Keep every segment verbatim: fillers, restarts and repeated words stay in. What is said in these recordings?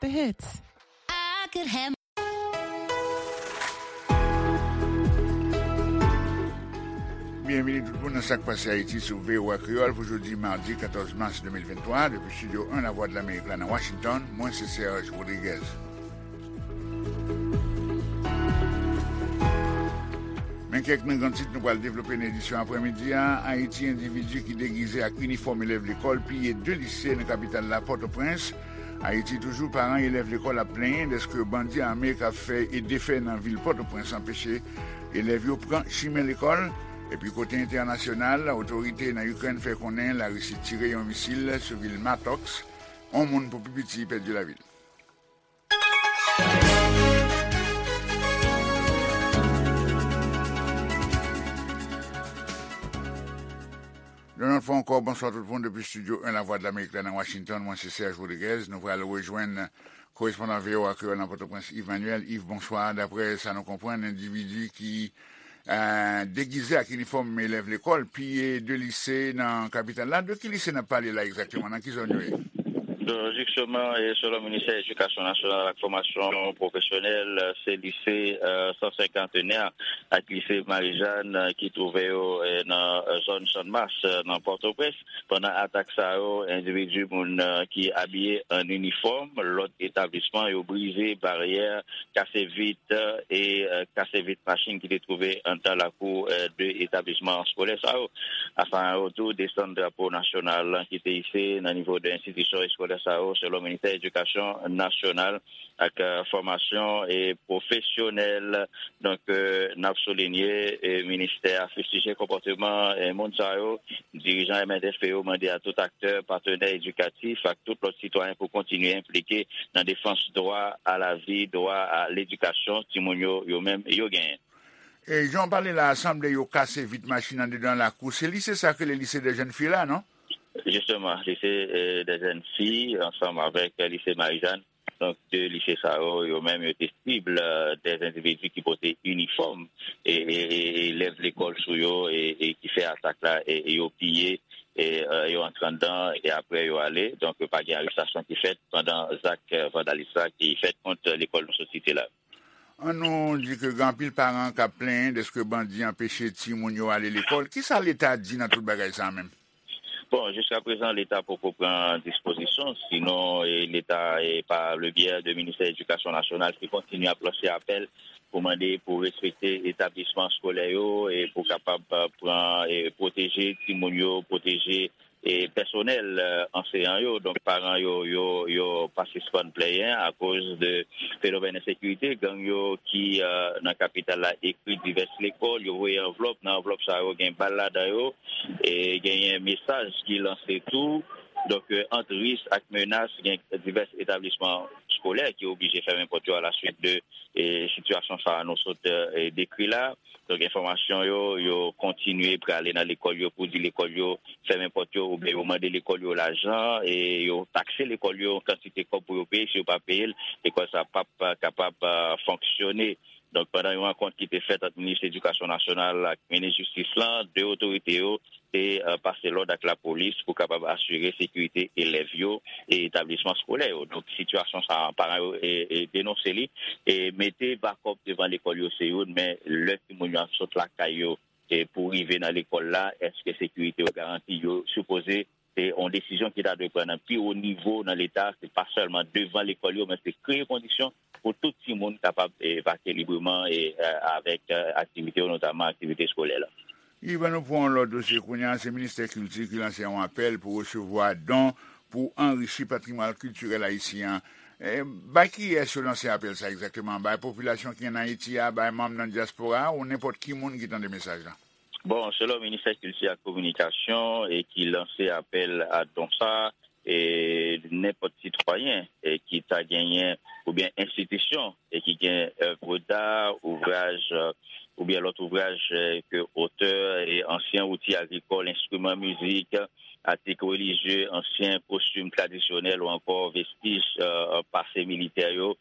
The hits. I could have Byenvini tout moun nan Sa k Pase Ayiti sou V O A Kreyòl pou jodi madi katòz mas de mil venntwa, depi Estidyo en Lavwadlamerik la nan Washington, mwen se Serge Rodriguez. Men kèk nan gran tit nou pral devlope nan edisyon aprèmidi a. Ayiti, endividi ki degize ak inifòm elèv lekòl piye de lise nan kapital la, Pòtoprens. Ayiti toujou, paran elèv lekòl ap plenyen dèske bandi ame k ap fè e defè nan vil Pòtoprens anpeche elèv yo pran chimen lekòl. Epi kote entènasyonal, otorite nan Ikrèn fè konnen Larisi tire yon misil sou vil Matoks. On moun pou pi piti pèdi lavi l. Yon lòt fwa ankò, bonswa tout moun depi Estidyo en Lavwadlamerik la nan Washington. Mwen se Serge Rodriguez. Nou pral rejwenn korespondan V O A Kreyòl nan Pòtoprens, Yves Manuel. Yves, bonswa. Daprè sa nou konprann, endividi ki eh, degize ak inifòm elèv lekòl piye de lise nan kapital la. De ki lise n ap pale la egzakteman? Nan ki zòn yo ye? Jisteman, e selon Ministè Edikasyon Nasyonal ak Fòmasyon Pwofesyonèl, se lise san senkantenè ak lise Marijàn ki twouve yo nan zòn Channmas nan Pòtoprens. Pandan atak sa yo, endividi, moun ki abiye an inifòm, lòt etablisman, yo brize baryè, kase vit e kase vit machin ki te twouve anndan lakou de etablisman eskolè sa yo. Afan yo tou desann drapo nasyonal ki te ise nan nivo de enstitisyon eskolè sa yo, selon Ministè Edikasyon Nasyonal ak Fòmasyon e Pwofesyonèl. Donk, n ap soulinye, ministè a fistije konpòteman moun sa yo. Dirijan M N F P yo mande a tout aktè, patnè edikatif ak tout lòt sitwayen pou kontinye enplike nan defans dwa a lavi, dwa a ledikasyon timoun yo, yo menm, yo genyen. E jan w pale la a, sanble yo kase vit machin anndedan lakou. Se lise sa k rele Lycée des Jeunes Filles la, non? Jisteman, Lycée des Jeunes Filles ansanm avèk Lise Marijàn. Donk, de lise sa yo, yo menm, yo te sib de endividi ki pote inifòm e elèv lekòl sou yo e ki fè atak la e yo piye e yo antre anndan e apre yo ale. Donk, pa gen arestasyon ki fèt pandan zak vandalis la ki fèt kont lekòl nou sot site la. An nou di ke gen anpil paran k ap plenyen dèske bandi anpeche timoun yo ale lekòl. Kisa Leta di nan tout bagay sa a menm? Bon, jiskaprezan, Leta poko pran dispozisyon, sinon Leta, pa le byè de Ministè Edikasyon Nasyonal, ki kontinye ap lanse apèl pou mande pou respekte etablisman eskolè yo e pou kapab pran, pwoteje timoun yo, pwoteje pèsonèl anseyan yo. Donk, paran yo, yo, yo pa sispann plenyen akoz de fenomèn ensekirite. Gang yo ki nan kapital la ekri divès lekòl, yo voye anvlòp, nan anvlòp sa yo gen bal ladan yo, e genyen mesaj ki lanse tou. Donk, ant risk ak menas, gen divès etablisman eskolè ki oblije fèmen pòt yo alaswit de sitiyasyon sa a nou sot dekri la. Donk, enfòmasyon yo, yo kontinye prale nan lekòl yo pou di lekòl yo fèmen pòt yo oubyen yo mande lekòl yo lajan e yo takse lekòl yo yon kantite kòb pou yo peye. Si yo pa peye l, lekòl sa p ap kapab fonksyone. Donk, pandan yon rankont ki te fèt ant minis edikasyon nasyonal ak minis jistis lan, de otorite yo te pase lòd ak lapolis pou kapab asire sekirite elèv yo e etablisman eskolè yo. Donk, sitiyasyon sa a, paran yo denonse li. E mete bakòp devan lekòl yo se youn, men lè timoun yo ap sot lakay yo pou rive nan lekòl la, èske sekirite yo garanti? Yo sipoze se yon desizyon ki ta dwe pran nan pi wo nivo nan Leta, se pa sèlman devan lekòl yo, men se kreye kondisyon pou tout timoun kapab vake libreman e avèk aktivite yo, notaman aktivite eskolè la. Yves, ann nou pran yon lòt dosye kounye a. Se Ministè Kilti ki lanse yon apèl pou resevwa don pou anrichi patrimwàn kiltirèl ayisyen an. Bay kiyès yo lanse apèl sa egzakteman? Bay popilasyon ki ann Ayiti a, bay manm nan dyaspora a, ou nenpòt ki moun ki tande mesaj la? Bon, selon Ministè Kilti ak Kominikasyon e ki lanse apèl a don sa a, e nenpòt sitwayen e ki ta genyen oubyen enstitisyon e ki gen èv da, ouvraj oubyen lòt ouvraj ke otè e ansyen outi agrikòl, enstriman mizik, atik relijye, ansyen kostim tradisyonèl ou ankò vestij pase militè yo,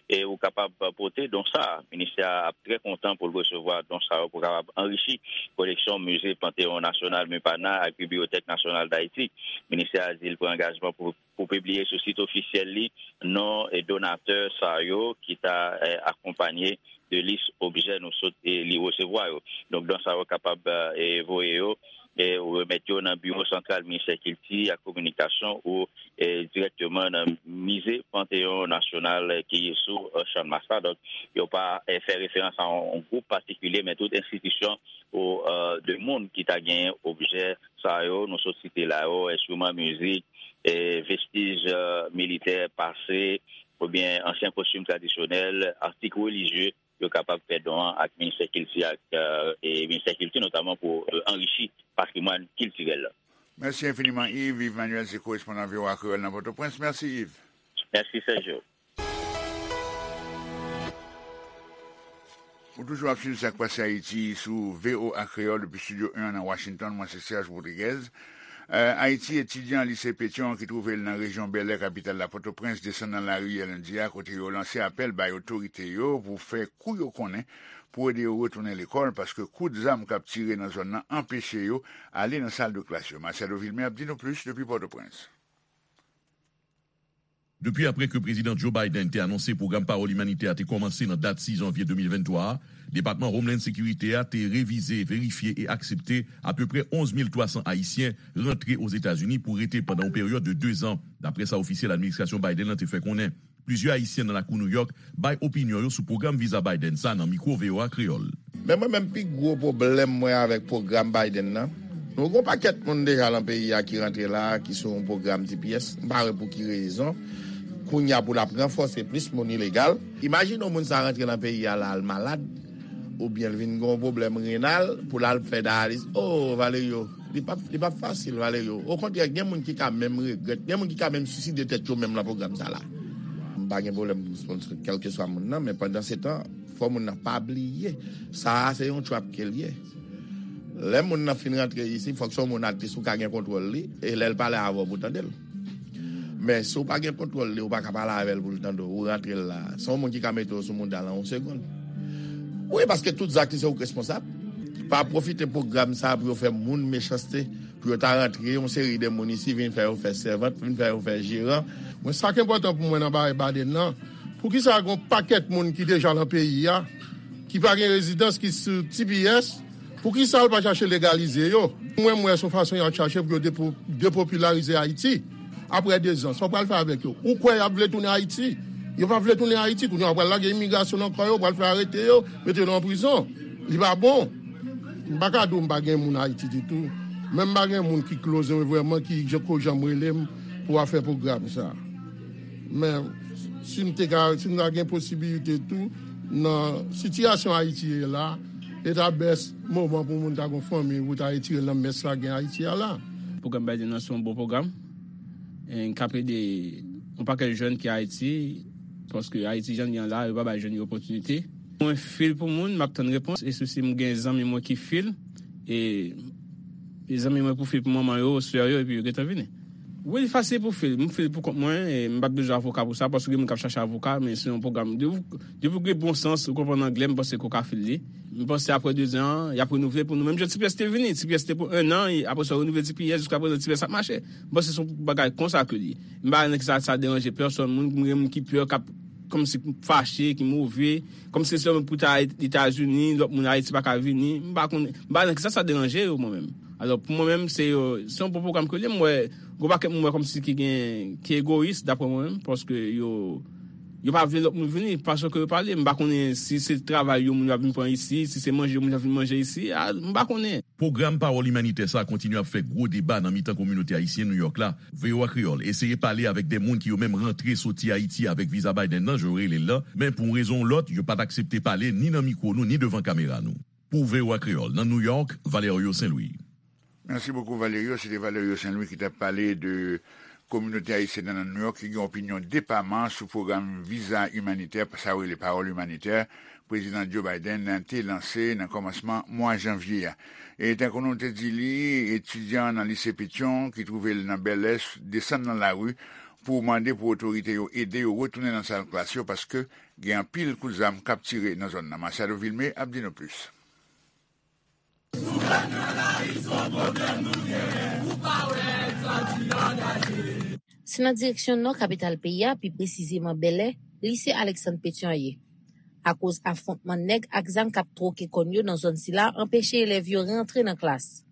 e ou kapab pote don sa a. Ministè a ap trè kontan pou l resevwa don sa yo pou kapab anrichi koleksyon Mize Panteyon Nasyonal, MUPANA, ak Bibliyotèk Nasyonal d Ayiti. Ministè a di l pran angajman pou, pou pibliye sou sit ofisyèl li non e donatè sa yo ki ta eh, akonpanye de lis objè nou sot e li resevwa yo. Donk, don sa yo kapab eh, voye yo e remèt yo nan Biwo Santral Ministè Kilti ak Kominikasyon ou eh, dirèkteman nan Mize Panteyon Nasyonal eh, ki sou eh, Channmas la. Donk, yo pa eh, fè referans a yon, yon gwoup patikilye, men tout enstitisyon ou eh, de moun ki ta genyen objè sa yo, nou sot site la yo, enstriman mizik, eh, vestij eh, militè pase, oubyen ansyen kostim tradisyonèl, atik relijye, yo kapab fè don an ak Ministè Kilti ak eh, e Ministè Kilti, notaman pou eh, anrichi patrimwàn kiltirèl la. Mèsi enfiniman, Yves. Yves Manuel se korespondan V O A Kreyòl nan Pòtoprens. Mèsi, Yves. Mèsi, Sergio. Ou toujou ap swiv Sa k Pase Ayiti sou V O A Kreyòl depi Estidyo en an nan Washington. Mwen se Serge Rodriguez. Eh, Ayiti, etidyan lise Petyon ki twouve l nan rejyon Bèlè, kapital la, Pòtoprens, desann nan lari yè lendi a, kote yo lanse apèl bay otorite yo pou fè kou yo konnen pou ede yo retounen lekòl, paske kout zam k ap tire nan zòn nan anpeche yo ale nan sal de klas yo. Marcelo Vilmé ap di nou plis depi Pòtoprens. Depi apre ke Prezidan Joe Biden te anonse pwogram pawòl imanitè a te kòmanse nan dat sis janvye de mil venntwa a, Depatman Homeland Security a te revize, verifye e aksepte apeprè onz mil twa san Ayisyen rantre Ozetazini pou rete pandan yon peryòd de dezan, dapre sa ofisyèl administrasyon Biden nan te fè konnen. Plizyè Ayisyen nan lakou New York bay opinyon yo sou pwogram viza Biden sa nan mikwo V O A Kreyòl. Men mwen menm, pi gwo pwoblèm mwen avèk pwogram Biden nan, nou gen yon pakèt moun deja nan peyi a ki rantre la a, ki sou yon pwogram T P S. M pa wè pou ki rezon kounye a pou l ap ranfòse plis moun ilegal. Imajine yon moun sa rantre nan peyi a la, al malad, oubyen l vin gen yon pwoblèm renal, pou l al fè dayalis. O, Valerio, li p ap, li p ap fasil, Valerio. Okontrè, gen moun ki ka menm regrèt, gen moun ki ka menm siside tèt yo menm nan pwogram sa la. M pa gen pwoblèm pou sponsor kèlkeswa moun nan, men pandan se tan, fò moun nan pa bliye, sa a se yon trap ke l ye. Lè moun nan fin rantre isi, fòk se yon moun atlis ou ka gen kontwòl li, e lè l pale avè w pou tande l. Men si w pa gen kontwòl li, ou pa ka pale avè l pou l tande w, ou rantre l la. Se yon moun ki ka mete w sou mouda l an yon segonn. Wi, paske tout zak li se ou k responsab. Pa pwofite pwogram sa a pou yo fè moun mechanste, pou yo ta rantre yon seri de moun isi, vin fè yo fè sèvant, vin fè yo fè jeran. Mwen, sa k enpòtan pou mwen nan bagay Biden nan, poukisa gen yon pakèt moun ki deja nan peyi a, ki pa gen rezidans, ki sou T P S, poukisa l pa chache legalize yo? Mwen, m wè se yon fason y ap chache pou yo depo-, depopilarize Ayiti. Apre dezan, sa w pral fè avèk yo? Ou kwè y ap vle tounen Ayiti? Yo pa vle tounen Ayiti. Kounye a, yo pral lage imigrasyon nan kò yo, yo pral fè arete yo, mete yo nan prizon. Li pa bon. M pa ka di w m pa gen moun Ayiti ditou. Men m pa gen moun ki close mwen vrèman, ki jan ko jan m rele m pou w ap fè pwogram sa. Men si m te ka, si m ta gen posibilite tou, nan sitiyasyon Ayiti ye la, e ta best moman pou moun ta gon fanmi, pou ta retire l nan mès la gen Ayiti a la. Pwogram Biden nan se yon bon pwogram. E k ap ede yon pakèt jèn ki Ayiti, paske Ayiti jan l ye an la, yo pa bay jèn yo opòtinite. Mwen fil pou moun, m ap tann repons, e si m gen zanmi mwen ki fil, e, e zanmi mwen pou fil pou manman yo, sè yo, epi yo gentan vini. Wi, li fasil pou fil. M fil pou kont mwen, e m pa t bezwen avoka pou sa, paske gen moun k ap chache avoka, men se yon pwogram. Depi, depi w gen bon sans, ou konprann anglè, m panse ke w ka fil li. M panse apre dezan an, y ap renouvle pou nou. Menm jan T P S te vini, T P S te pou ennan, e apre sa, yo renouvle T P S, jiska prezan, T P S ap mache. M panse se yon bagay konsa ke li ye. M pa wè nan kisa sa deranje pèsòn, moun, gen moun ki pè, k ap kòmsi fache, ki move, kòmsi se sèlman pou ta Etazini, lòt moun Ayiti pa ka vini. M pa konnen, m pa wè nan kisa sa deranje yo, mwen menm. Alò, pou mwen menm, se, euh, se yon bon pwogram ke li ye. M wè, gon pakèt moun wè kòmsi ki gen, ki egoyis, daprè mwen menm, paske yo, yo pa vle lòt moun vini, fason ke yo pale. M pa konnen si se travay yo moun yo ap vin pran isi, si se manje yo moun yo ap vin manje isi, a, m pa konnen. Pwogram pawòl imanitè sa a kontinye ap fè gwo deba nan mitan kominote ayisyen New York la. V O A Kreyòl eseye pale avèk de moun ki yo menm rantre soti Ayiti avèk viza Biden nan, jan yo rele l lan, men pou yon rezon ou lòt, yo pa t aksepte pale ni nan mikwo nou, ni devan kamera nou. Pou V O A Kreyòl, nan New York, Valerio Saint Louis. Mèsi bokou, Valerio. Se te Valerio Saint Louis ki t ap pale de kominote ayisyèn nan New York ki gen opinyon depaman sou pwogram viza imanitè, sa yo rele pawòl imanitè, Prezidan Joe Biden te lanse nan kòmansman mwa janvye a. E tankou nou te di li, etidyan nan lise Petyon ki twouve l nan Bèlè desann nan lari pou mande pou otorite yo ede yo retounen nan sal klas yo, paske gen anpil kout zam k ap tire nan zòn nan. Machado Vilmé ap di nou plis. Se nan direksyon nò kapital peyi a, pi presizeman Bèlè, lise Alexandre Pétion ye. Akoz afwontman nèg ak zam k ap twoke kòn yo nan zòn sila anpeche elèv yo rantre nan klas.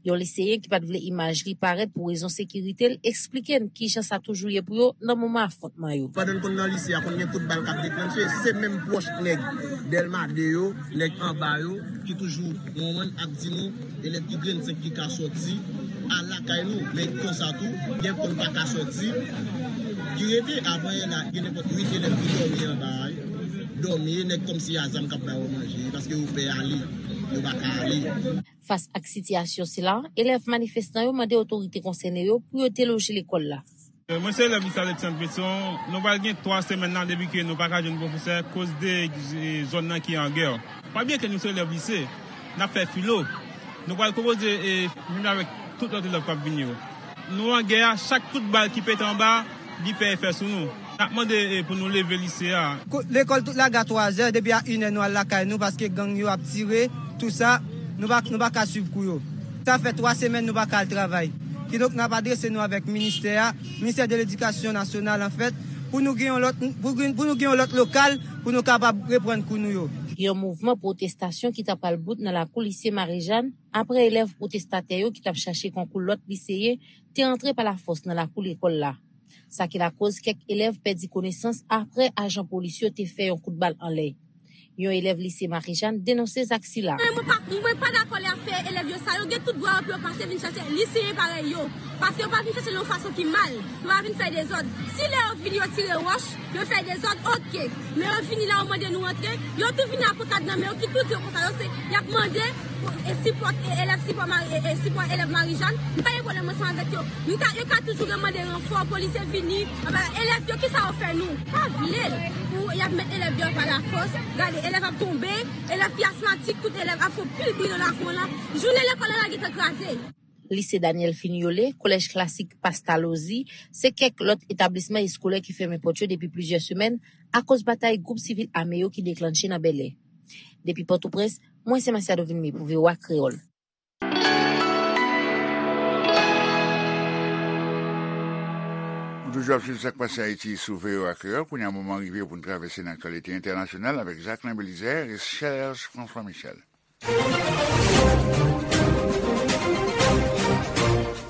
Yon liseyen ki pa t vle imaj li parèt pou rezon sekirite l eksplike n kijan sa toujou ye pou yo nan moman afwontman yo. Pandan n konn nan lise a, konn gen kout bal k ap deklanche, se menm pwòch nèg Dèlma de yo, nèg anba yo, ki toujou konn ap di nou elèv ki grenn senk ki ka sòti al lakay nou. Men konsa tou, gen konn pa ka sòti, ki rete. Apre la, gen nenpòt uit elèv ki dòmi anba a, dòmi, nèg kòmsi a zam k ap ba yo manje, paske yo pè ale, yo pa ka ale. Fas ak sitiyasyon sila, elèv manifestan yo mande otorite konsène yo pou yo deloje lekòl la. Mwen se elèv lise Alexandre Pétion. Nou pral gen twa semèn la depi ke nou pa ka jwenn pwofesè koz de zòn nan ki an gè. Pa bliye ke nou se elèv lise, n ap fè filo. Nou pral konpoze e menm jan avèk tout lòt elèv k ap vini yo. Nou an gè a, chak kout bal ki pete anba, li fè efè sou nou. N ap mande e pou nou leve lise a. Lekòl tout lage a twazè, depi a inè nou al lakay nou paske gang yo ap tire, tou sa, nou pa, nou pa ka swiv kou yo. Sa fè twa semèn nou pa ka al travay. Kidonk n ap adrese nou avèk ministè a, ministè de ledikasyon nasyonal anfèt, pou nou gen yon lòt, pou, pou nou gen yon lòt lokal pou nou kapab reprann kou nou yo. Yon mouvman pwotestasyon ki ta pral bout nan lakou lise Marijàn apre elèv pwotestatè yo ki t ap chache konkou lòt liseyen te antre pa lafòs nan lakou lekòl la. Sa ki lakoz kèk elèv pèdi konesans apre ajan polis yo te fè yon kout bal anlè. Yon elèv lise Marijàn denonse zak sila. Mwen pa, mwen pa dakò lè y ap fè elèv yo sa. Yo gen tout dwa yo pou yo pase vin chache liseyen parèy yo. Paske yo pa vin chache l yon fason ki mal. Yo pa vin fè dezòd. Si lè yo vini yo tire wòch, yo fè dezòd, oke. Men yo vini la, yo mande nou antre. Yo tou vini a pankad nan men yo ki tou di yo konsa. Yo se, y ap mande e sipò, e elèv sipò Mari, e, e sipò elèv Marijàn. M pa gen pwoblèm ansanm avèk yo. M ka, yo ka toujou remande ranfò, polisye vini. Anba, elèv yo, kisa yo fè nou? Pa vle l. Pou y ap met elèv deyò pa lafòs. Gade, elèv ap tonbe, elèv ki asmatik, tout elèv ap fè pil bri nan lakou an la. Jounen lekòl an la gentan kraze. Lise Daniel Fignolé, Kolèj Klasik Pastalozzi, se kèk lòt etablisman eskolè ki fèmen pòt yo depi plizyè semèn akoz batay gwoup sivil ame yo ki deklanche nan Bèlè. Depi Pòtoprens, mwen se Masiado Vilmé pou V O A Kreyòl. Nou toujou ap swiv sa k pase Ayiti sou V O A Kreyòl. Kounye a, moman rive pou n travèse nan aktyalite entènasyonal avèk Jacquelin Belizaire e Serge François Michel.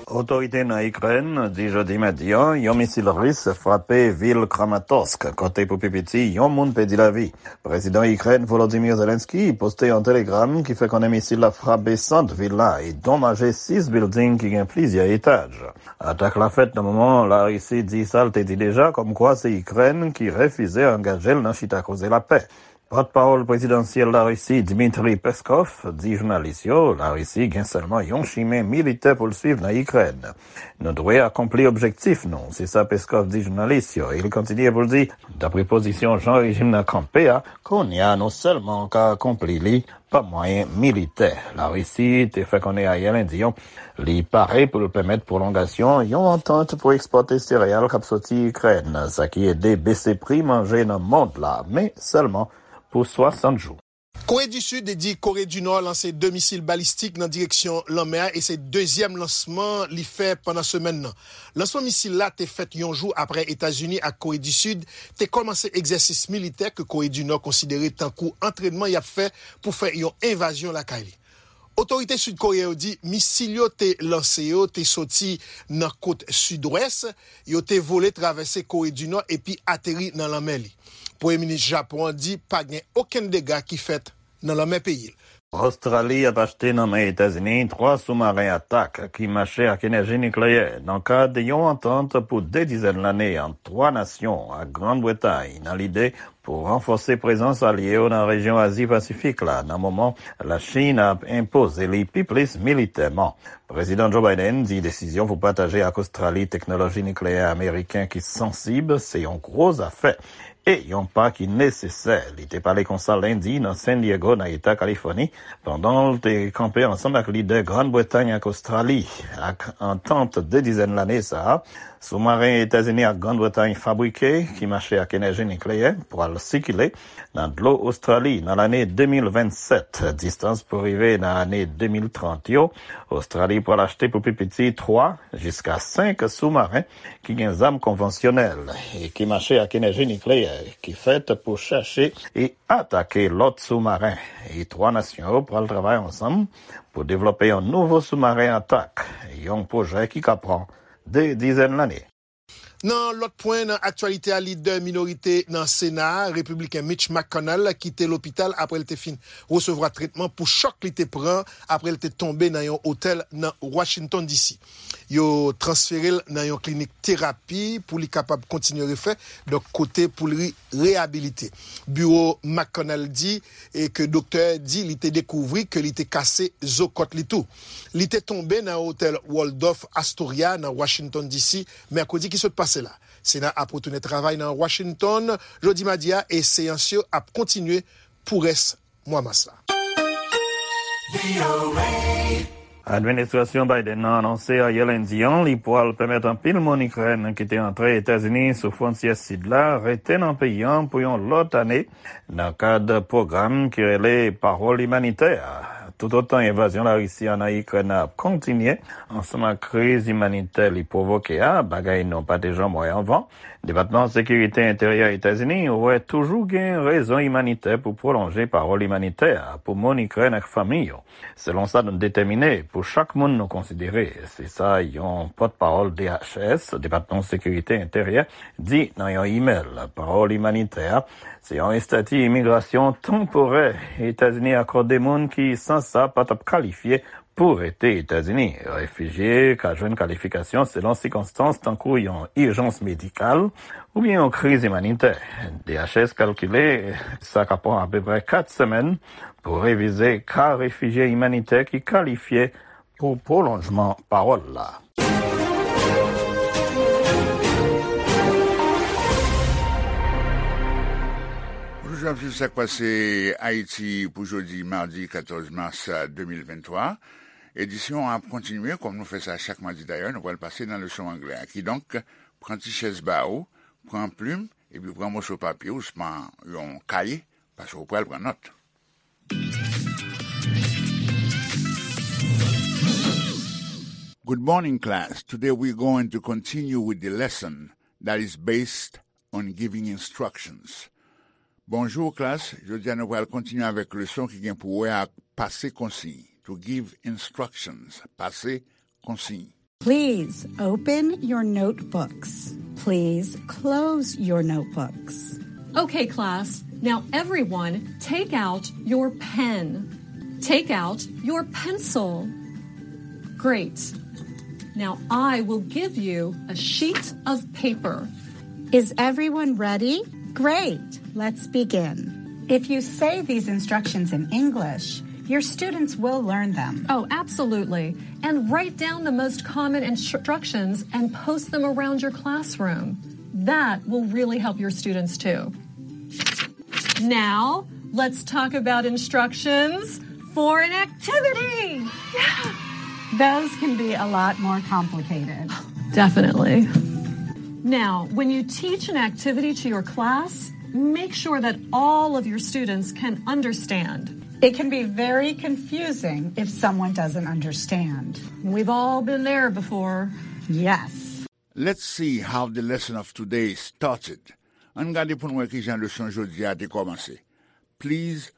Otorite nan Ikrèn di jodi madi a yon misil ris frape vil Kramatorsk, kote pou pi piti yon moun pèdi lavi. Prezidan Ikrèn Volodymyr Zelensky poste yon telegram ki fè konnen misil la frape sant vil la e donmaje sis bilding ki gen plizyè etaj. Atak la fèt nan moman Larisi di sa l te di deja kòmkwa se Ikrèn ki refize angaje l nan chita koze lapè. Pòtpawòl prezidansyèl Larisi, Dmitry Peskov, di jounalis yo Larisi gen sèlman yon chimen militè pou l swiv nan Ikrèn. Nou dwe akonpli objektif nou, se sa Peskov di jounalis yo, e li kontinye pou l di, dapre pozisyon jan rejim nan kanpe a, kounye a nou sèlman ka akonpli li pa mwayen militè. Larisi te fè konnen ayè lendi an li pare pou l pèmèt pwolongasyon yon antant pou ekspòte sereyal k ap soti Ikrèn, sa ki ede bese pri manje nan mond la, men sèlman pou swasant jou. Kore di Sid di Kore di Nò lanse de misil balistik nan direksyon lanmè a e se dezyèm lansman li fè pandan semèn nan. Lansman misil la te fèt yon jou apre Etazini ak Kore di Sid te kòmanse egzèsis militè ke Kore di Nò konsidere tankou antrènman y ap fè pou fè yon envazyon lakay li. Otorite sid koreyen yo di misil yo te lanse yo te soti nan kot sidwès, yo te vole travèse Kore di Nò epi ateri nan lanmè li. Premye minis Japon an di pa gen okenn dega ki fèt nan lanmè peyi l. Ostrali ap achte nan men Etazini twa soumaren atak ki mache ak enèji nikleyè nan kad yon antant pou de dizèn lane ant twa nasyon ak Grann Bretay nan lide pou ranfòse prezans alye yo nan rejyon Azi Pasifik la, nan moman Lachin ap enpoze li pi plis militèman. Prezidan Joe Biden di desizyon pou pataje ak Ostrali teknoloji nikleyè ameriken ki sansib se yon gwo zafè e yon pa ki nesesè. Li te pale konsa lendi nan San Diego, nan eta Kalifòni, pandan l te kanpe ansanm ak lidè Grann Bretay ak Ostrali. Ak antant de dizèn lane sa a, soumaren Etazini ak Grann Bretay fabrike, ki mache ak enèji nikleyè, pral sikile nan dlo Ostrali nan lane de mil vennsèt. Distans pou rive nan ane de mil trant yo, Ostrali pral achte pou pi piti twa jiska senk soumaren ki gen zam konvansyonèl e ki mache ak enèji nikleyè, ki fèt pou chache e atake lòt soumaren. E twa nasyon yo pral travay ansanm pou devlope yon nouvo soumaren atak, yon pwojè ki ka pran de dizèn lane. Nan lòt pwen nan aktyalite a, lidè minorite nan Sena a, repibliken Mitch McConnell, kite lopital apre l te fin resevwa tretman pou chòk li te pran apre l te tonbe nan yon otèl nan Washington D C. Yo transfere l nan yon klinik terapi pou li kapab kontinye refè, donk kote pou li reyabilite. Biwo McConnell di e ke doktè di li te dekouvri ke li te kase zo kòt li tou. Li te tonbe nan otèl Waldorf Astoria nan Washington D C mèkredi ki sot pase la. Sena ap retounen travay nan Washington jodi madi a e seyans yo ap kontinye pou rès mwa mas la. Administrasyon Biden nan anonse ayè lendi an li pral pèmèt anpil moun Ikrèn ki te antre Etazini sou fwontyè sid la rete nan peyi an pou yon lòt ane nan kad pwogram ki rele Pawòl Imanitè a. Toutotan envazyon Larisi an nan Ikrèn ap kontinye, ansanm ak kriz imanitè li pwovoke a, bagay nou pa te janm wè anvan, Depatman Sekirite Enteryè Etazini wè toujou gen rezon imanitè pou pwolonje pawòl imanitè a pou moun Ikrèn ak fanmi yo, selon sa nou detèmine pou chak moun nou konsidere, se sa yon pòtpawòl D H S, Depatman Sekirite Enteryè, di nan yon imèl. Pawòl imanitè a se yon estati imigrasyon tanporè Etazini akòde moun ki, san sa, pa t ap kalifye pou rete Etazini. Refijye ka jwenn kalifikasyon selon sikonstans, tankou yon ijans medikal oubyen yon kriz imanitè. D H S kalkile sa ka pran apeprè kat semèn pou revize ka refijye imanitè ki kalifye pou pwolonjman pawòl la. Bonjou, ap swiv sa k pase Ayiti pou jodi madi katòz mas de mil venntwa. Edisyon an ap kontinye, kòm nou fè sa chak madi dayè, nou pral pase nan leson anglè a. Kidonk, pran ti chèz ba ou, pran plim, epi pran moso papye ou, swa yon kaye, paske ou pral pran nòt. Good morning, class. Today we're going to continue with the lesson that is based on giving instructions. Bonjou, klas. Jodi a, nou pral kontinye avèk leson ki gen pou wè ak pase konsiy. To give instructions. Pase konsiy. Please open your notebooks. Please close your notebooks. Okay, class. Now everyone take out your pen. Take out your pencil. Great. Now I will give you a sheet of paper. Is everyone ready? Great. Let's begin. If you say these instructions in English, your students will learn them. Oh, absolutely. And write down the most common instructions and post them around your classroom. That will really help your students too. Now, let's talk about instructions for an activity. Yeah. Those can be a lot more complicated. Definitely. Now, when you teach an activity to your class, make sure that all of your students can understand. It can be very confusing if someone doesn't understand. We've all been there before. Yes. Let's see how the lesson of today started. Ann gade pou n wè kijan leson jodi a te kòmanse. Please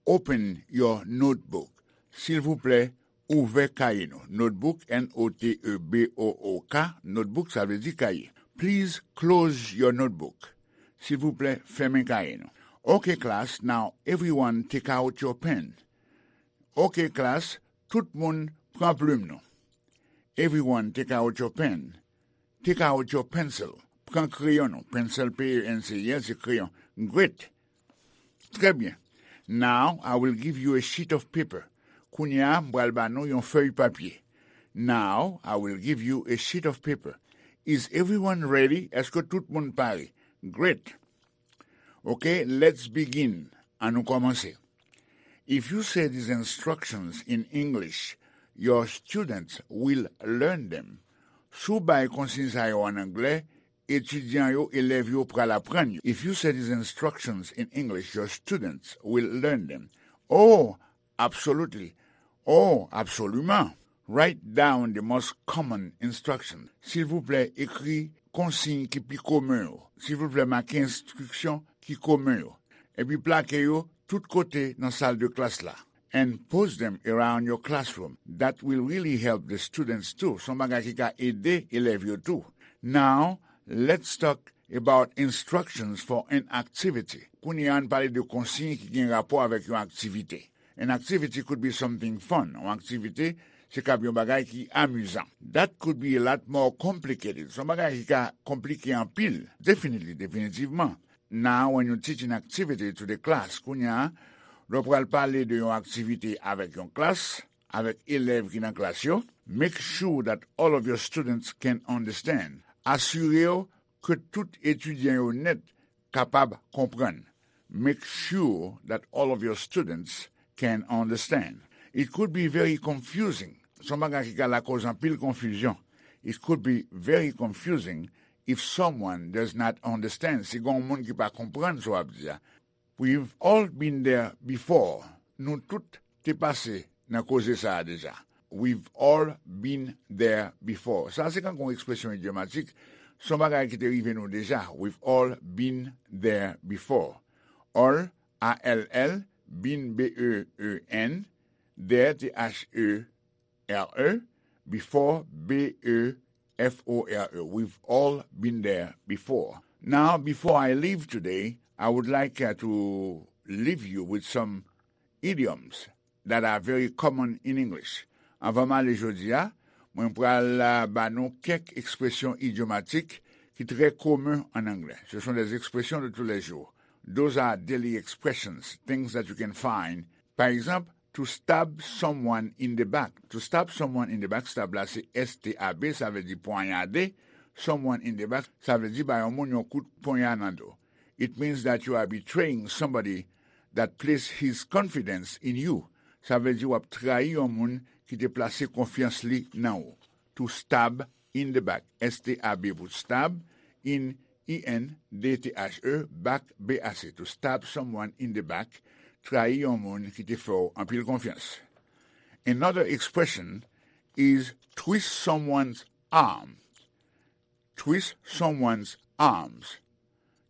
open your notebook. Silvouplè, ouvè kaye nou. Notebook, N O T E B O O K, notebook, sa vle di kaye. Please close your notebook. Silvouplè, fèmen kaye nou. Okay, class, now everyone take out your pen. Okay, class, tout moun pran plim nou. Everyone take out your pen. Take out your pencil. Pran kreyon nou. Pencil, P E N C I L, se kreyon. Great. Trè byen. Now, I will give you a sheet of paper. Kounye a, m pral ba nou yon fèy papye. Now, I will give you a sheet of paper. Is everyone ready? Èske tout moun pare? Great. Ok, let's begin. Ann nou kòmanse. If you say these instructions in English, your students will learn them. Si w bay konsiy sa yo ann anglè, etidyan yo, elèv yo pral aprann yo. If you say these instructions in English, your students will learn them. Oh, absolutely. Oh, absolument. Write down the most common instruction. Silvouplè, ekri konsiy ki pi komen yo. Silvouplè, make enstriksyon ki komen yo. Epi plake yo tout kote nan sal de klas la. And post them around your classroom. That will really help the students too. Se yon bagay ki ka ede elèv yo tou. Now, let's talk about instructions for an activity. Kounye a, ann pale de konsiy ki gen rapò avèk yon aktivite. An activity could be something fun. Yon aktivite, se kab yon bagay ki amizan. That could be a lot more complicated. Se yon bagay ki ka konplike anpil. Definitely, definitivman. Now, when you teach an activity to the class, kounye a, lè w pral pale de yon aktivite avèk yon klas, avèk elèv ki nan klas yo, make sure that all of your students can understand. Asire w ke tout etidyan yo nèt kapab konprann. Make sure that all of your students can understand. It could be very confusing. Se yon bagay ki ka lakòz anpil konfizyon. It could be very confusing if someone does not understand. Si gen yon moun ki pa konprann sa w ap di a. We've all been there before. Nou tout te pase nan koze sa a deja. We've all been there before. Sa se kankou yon ekspresyon idyomatik. Se yon bagay ki te rive nou deja. We've all been there before. All, A L L, been, B E E N, there, T H E R E, before, B E F O R E. We've all been there before. Now, before I leave today, I would like uh, to leave you with some idioms that are very common in English. Anvan m ale jodi a, mwen pral uh, ba nou kèk ekspresyon idyomatik ki trè komen an anglè. Ce sont des expressions de tous les jours. Those are daily expressions, things that you can find. Pa egzanp, to stab someone in the back. To stab someone in the back, stab la se S T A B, sa vle di ponyade. Someone in the back, sa vle di ba yon moun yon kout ponya nan do. It means that you are betraying somebody that placed his confidence in you. Sa vle di w ap trayi yon moun ki te plase konfyans li nan ou. To stab in the back. S T A B pou stab, in, I N, D T H E, back, B A C. To stab someone in the back, trayi yon moun ki te fè w anpil konfyans. Another expression is twist someone's arm. Twist someone's arms.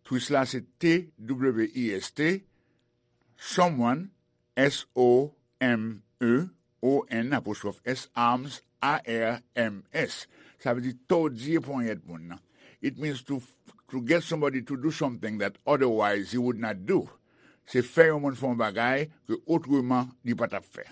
Twist la se T W I S T, someone, S O M E O N, apostrophe S, arms, A R M S. Sa vle di tòdye ponyèt moun nan. It means to, to get somebody to do something that otherwise he would not do. Se fè yon moun fè yon bagay ke otreman li pa t ap fè.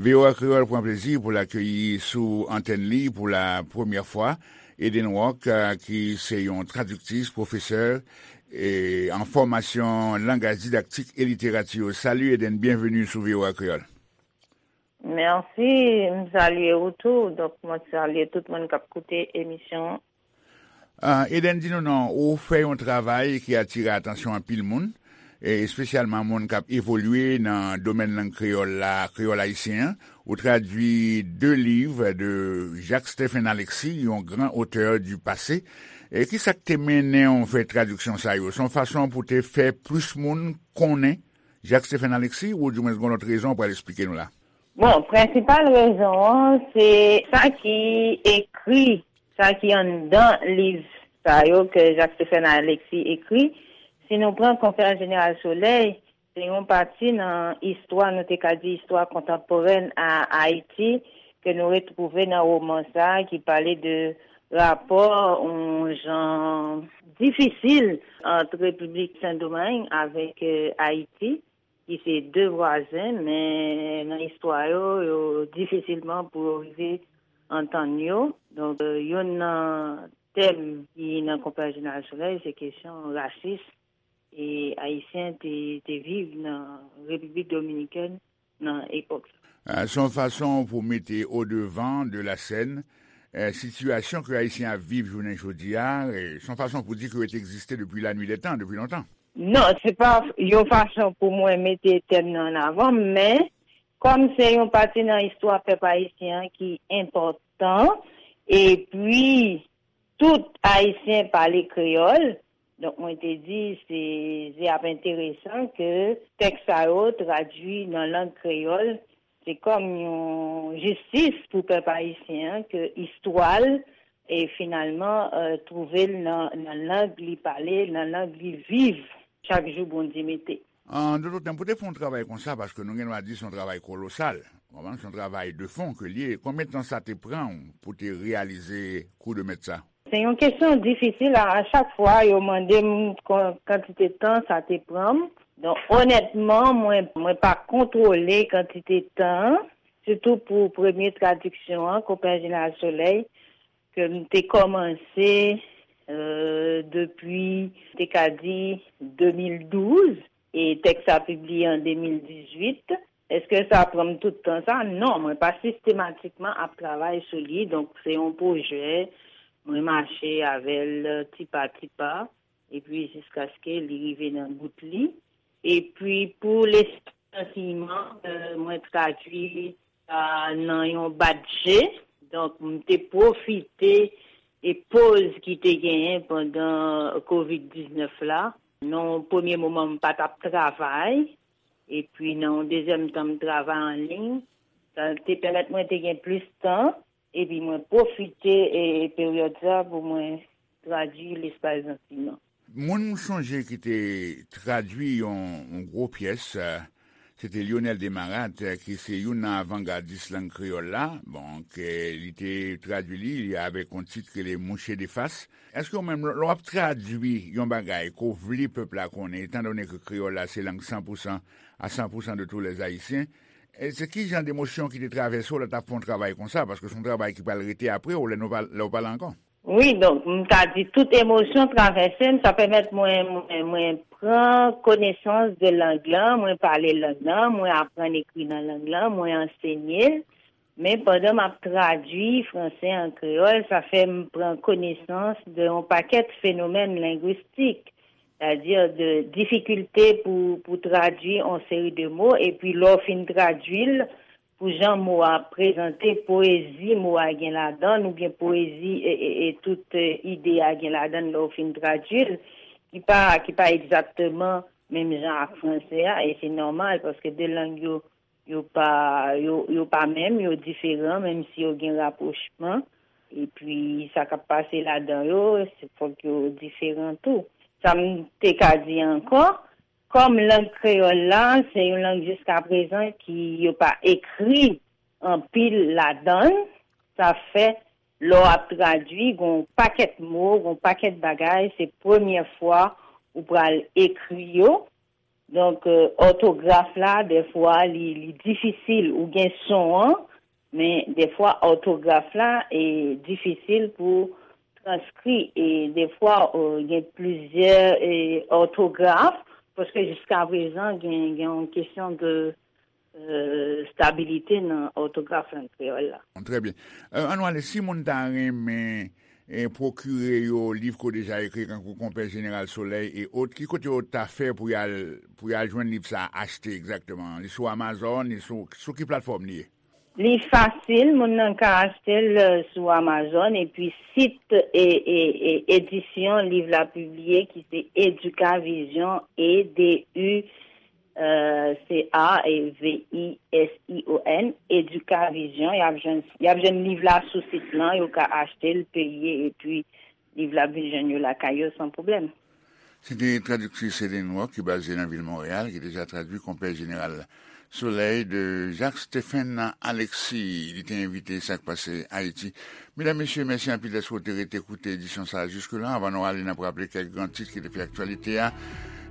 V O A Kreyòl pran plezi pou l akeyi sou antèn li pou la premyè fwa Eden Rock, euh, ki se yon tradiktris, pwofesè, e, an fòmasyon langaj didaktik e literati. Salut Eden, byenveni sou V O A Kreyòl. Mèsi, m salye ou tou. Donk, mwen salye tout moun k ap koute emisyon an. Ah, Eden, di nou non, ou fè yon travay ki atire atansyon anpil moun, e espesyalman moun k ap evolye nan domèn lang kreyòl la, kreyòl ayisyen an. Ou tradui de liv de Jacques Stephen Alexis, yon gran otè du passé. E ki sa k te mennen w fè tradiksyon sa yo? Se yon fason pou te fè plis moun konnen Jacques Stephen Alexis, oudimwens gen yon lòt rezon w pral esplike nou la? Bon, prensipal rezon an, se sa ki ekri, sa ki anndan liv sa yo ke Jacques Stephen Alexis ekri. Si nou pran Konferans Jeneral Solèy, se yon pati nan istwa, nou te ka di istwa kontanporèn a Ayiti, ke nou retwouve nan woman sa a ki pale de rapò yon jan difisil ant Repiblik Sendomeng avèk Ayiti, ki se de vwazen, men nan istwa yo, yo difisilman pou yo rive antann yo. Donk, youn nan tèm ki nan Konpè Jeneral Solèy, se kesyon rasis e Ayisyen te, te viv nan Repiblik Dominikèn nan epòk sa. Ah, se yon fason pou mete au devant de la scène, eh, sitiyasyon ke Ayisyen ap viv jounen jodi a, eh, se yon fason pou di ke yo te egziste depi la nuit des temps, depi lontan. Non, se pa yon fason pou mwen mete tèm nan an avan, men kòm se yon pati nan istwa pèp ayisyen an ki enpòtan, epi tout Ayisyen pale kreyòl, donk mwen te di se, se ap enteresan ke tèks sa yo tradui nan lang kreyòl, se kòm yon jistis pou pèp ayisyen an ke istwa l e finalman, eh, twouve l nan, nan lang li pale, nan lang li viv chak jou Bondye mete. An dòt tèm, pou te fè yon travay konsa, paske nou gen dwa di se yon travay kolosal, w konprann, se yon travay de fon ke l ye, konbyen tan sa te pran w pou te reyalize kou de mèt sa? Se yon kesyon difisil. A, a chak fwa, yo mande m kon-, kantite tan sa te pran m. Donk, onètman, mwen, mwen pa kontwole kantite tan, sitou pou premye tradiksyon an, Konpè Jeneral Solèy, ke m te kòmanse, euh, depi, te ka di, de mil douz, e tèks sa pibliye an de mil dizuit. Èske sa pran m tout tan sa? Non, mwen pa sistematikman ap travay sou li, donk se yon pwojè, mwen mache avè l ti pa ti pa, epi jiskaske li rive nan bout li. Epi pou Lespri Santiman, euh, mwen tradui sa nan yon bat je. Donk, m te pwofite e poz ki te genyen pandan kovid diznèf la. Nan yon premye moman, m pa t ap travay. Epi, nan yon dezyèm tan, m travay an liy. Sa te pèmèt mwen te gen plis tan. Epi, mwen pwofite e, e peryòd sa pou mwen tradui Lespri Santiman. Moun m sonje ki te tradui yon, yon gwo pyès, eh, se te Lyonel Desmarattes, eh, ki se youn nan avangadis lang kreyòl la. Bon, ke li te tradui li, li avèk yon tit ki rele Mouche de Fas. Èske ou menm, lè w ap tradui yon bagay ke w vle pèp la konnen, etan done ke kreyòl la se lang san pou san, à cent pour cent de tous les Haïtiens, e se ki jan de emosyon ki te travèse w lè w t ap fè yon travay konsa? Paske se yon travay ki pral rete apre w, lè nou pa, lè w pa la ankò. Wi, donk, m ta di tout emosyon travèse m, sa pèmèt mwen, mwen, mwen pran konesans de lang lan, mwen pale lang lan, mwen aprann ekri nan lang lan, mwen ansenye l. Men pandan m ap tradui franse an kreyòl, sa fè m pran konesans de yon pakèt fenomèn lengwistik, sètadi de difikilte pou, pou tradui yon seri de mo, epi lè w fin tradui l, pou jan mo a prezante, poezi mo a gen ladan l, oubyen poezi e, e, e tout, e, ide a gen ladan l lè w fin tradui l, ki pa, ki pa egzakteman menm jan ak franse a, e se nòmal, paske de lang yo, yo pa, yo, yo pa menm, yo diferan, menm si yo gen rapwochman. Epi, sa k ap pase ladan yo, se fòk yo diferan tou. Sa m te ka di ankò, kòm lang kreyòl la, se yon lang jiskaprezan ki yo pa ekri anpil ladan l, sa fè, lè w ap tradui, gen yon pakèt mo, gen yon pakèt bagay, se premyè fwa ou pral ekri yo. Donk, e, òtograf la, dèfwa, li, li difisil. Ou gen son an, men dèfwa, òtograf la, e, difisil pou transkri. E dèfwa, e, gen plizyè, e, òtograf, paske jiskaprezan, gen, gen yon kesyon de, e, stabilite nan òtograf lang kreyòl la. Trè byen. E, ann ale, si moun ta renmen, e, pwokire yo liv ke w deja ekri, tankou Konpè Jeneral Solèy e ot, ki kote yo ta fè pou y al, pou y al jwenn liv sa a, achte egzakteman? Li sou Amazon, li sou, sou ki platfòm li ye? Li fasil, moun nan ka achte l, e, sou Amazon, epi sit, e, e, e, edisyon liv la pibliye ki se Educavision, E D U, e, C A V I S I O N, Educavision, y ap jwenn, y ap jwenn liv la sou sit lan, yo ka achte l, peye, epi liv la ap vin jwenn yo lakay yo san pwoblèm. Se te tradiktris Eden Rock ki baze nan vil Monreyal, ki deja tradui Konpè Jeneral Solèy de Jacques Stephen Alexis. Li te envite Sa k Pase Ayiti. Medam, mesye, mèsi anpil dèske w te rete koute edisyon sa a jiske la. Anvan nou ale, n ap raple kèk gran tit ki te fè aktyalite a.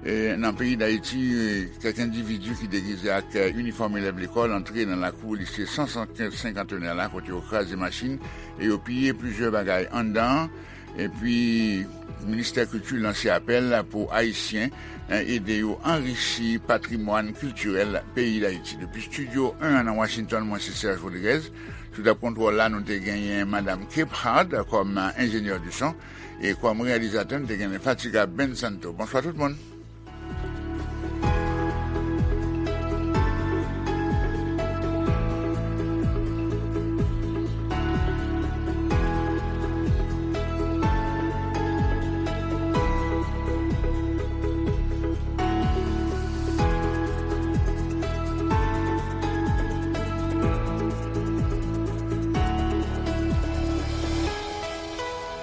E, nan peyi Dayiti, e, kèk endividi ki degize ak, e, inifòm elèv lekòl antre nan lakou lise san senkant senkantennè la, kote yo kraze machin e yo piye plizyè bagay anndan an. Epi, Ministè Kilti lanse apèl pou Ayisyen, eh, ede yo anrichi patrimwàn kiltirèl peyi Dayiti. Depi Estidyo en an nan Washington, mwen se Serge Rodriguez. Sou tab kontwòl la, nou te genyen Madam Kep Hart kòm, eh, enjenyè di son. E kòm reyalizatè, nou te genyen Fatiga Ben Santo. Bonswa tout moun.